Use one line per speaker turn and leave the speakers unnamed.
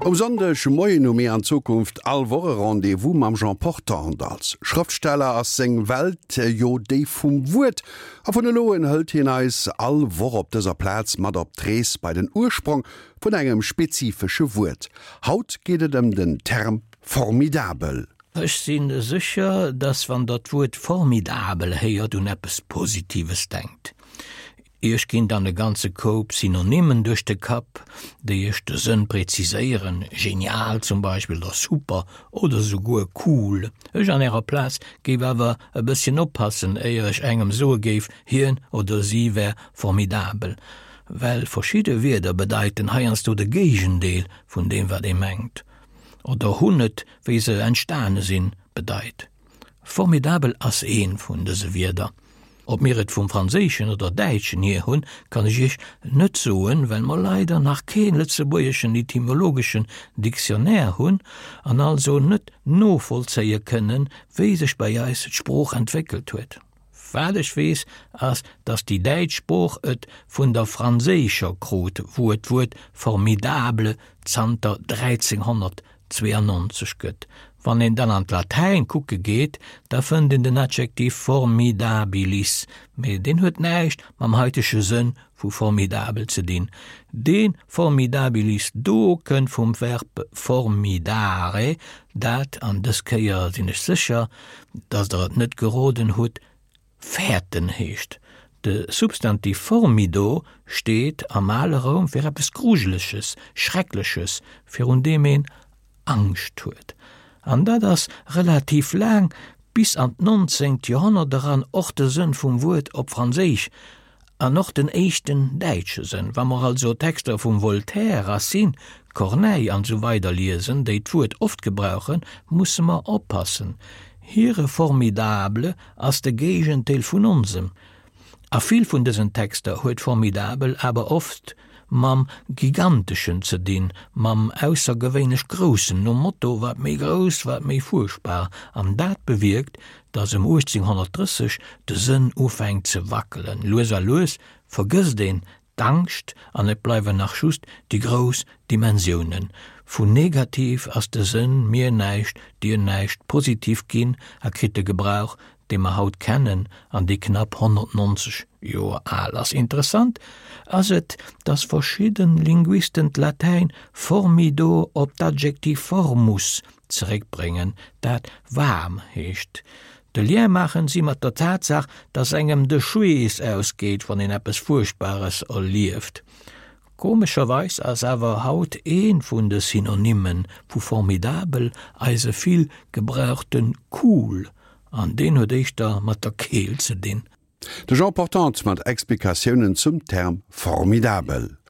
Um Sonndeg Moien hu mir an Zukunft all Woch e Rendez-vous mam Jean Portante. Als Schrëftsteller ass seng Welt jo déi vum Wuert, a vun elo un hëlt hien eis all Woch op dëser Plaz mat op d'Rees bei den Ursprong vun engem spezifesche Wuert. Haut geet et ëm den Term formidabel.
Ech si sécher, dass wann der d'Wuert formidabel héiert, un eppes Positives denkt. Iech ginn dann e ganze Koup Synonymen duerch de Kapp, déi iech de Sënn präziséieren, genial zum Beispill oder super oder souguer cool. Ech an ärer Plaz géif awer e bësschen oppassen, éier ech engem soe géif, hien oder si wär formidabel, well verschidde Wierder bedeiten heiansdo de Géigendeel vun deem wat ee mengt oder hunn et, wéi se entstane sinn, bedeit. Formidabel ass ee vun dëse Wierder. Ob mir et vum Franséischen oder Däitschen hier hunn, kann ech Iech net soen, well mer leider nach kee lëtzebuergeschen etymologeschen Dictionnaire hunn an also net novollzéie kënnen, wéi sech bei eis d'Sprooch entwéckelt huet. Wat ech weess, ass, datt déi däitsch Sprooch et vun der franséischer krut, wou et d'Wuert formidable zanter 1300 92 gëtt. Wann een dann an d'Latäin kucke geet, da fënnt een den Adjektiv formidabilis, mee deen huet näischt mam haitege Sënn vu formidabel ze dinn. Dee formidabilis do kënnt vum Verb formidare, dat, an dës Kéier sinn ech sécher, datt Der et net geroden hutt, fäerten heescht. De Substantiv formido steet am ale Roum fir eppes Grujeleches, Schreckleches, virun deem een Angscht huet. An dat ass relativ laang, bis an d'nonzéngt Joerhonnert eran, och de Sënn vum Wuert op Franséisch An och den éischten däitsche Sënn. Wa mer also Texter vum Voltaire, Racine, Corneille an esou weider liesen, déi d'Wuert oft gebrauchen, musse mer oppassen. Hire formidable ass de Géigendeel vun onsem. A vill vun dësen Texter huet formidabel awer oft mam Giganteschen ze dinn, mam aussergewéinlech Groussen, nom Motto, wat méi grouss, wat méi fuerchtbar. An dat bewierkt, datt ëm 1830 de Sënn ufänkt ze wackelen. Lues a lues vergësst een d'Angscht an et bleiwen nach just déi grouss Dimensiounen. Vun negativ ass de Sënn mir näischt, dir näischt positiv ginn a kritt de Gebrauch, dee mer haut kennen an dee knapp 190 Joer al ass. Interessant ass et, datt verschidde Linguisten d'Latäin formido op d'Adjektiv formus zeréckbréngen, dat waarm heescht. De Lien maachen si mat der Tatsaach, datt engem de Schweess ausgeet, wann een eppes Fuerchtbares erlieft. Komescherweis ass awer haut ee vun de Synonymme vu formidabel eise vill gebrauchte cool, an deen huet éischter mat der Keelt ze dinn.
De Jean Portante mat Explikatiounen zum Term formidabel.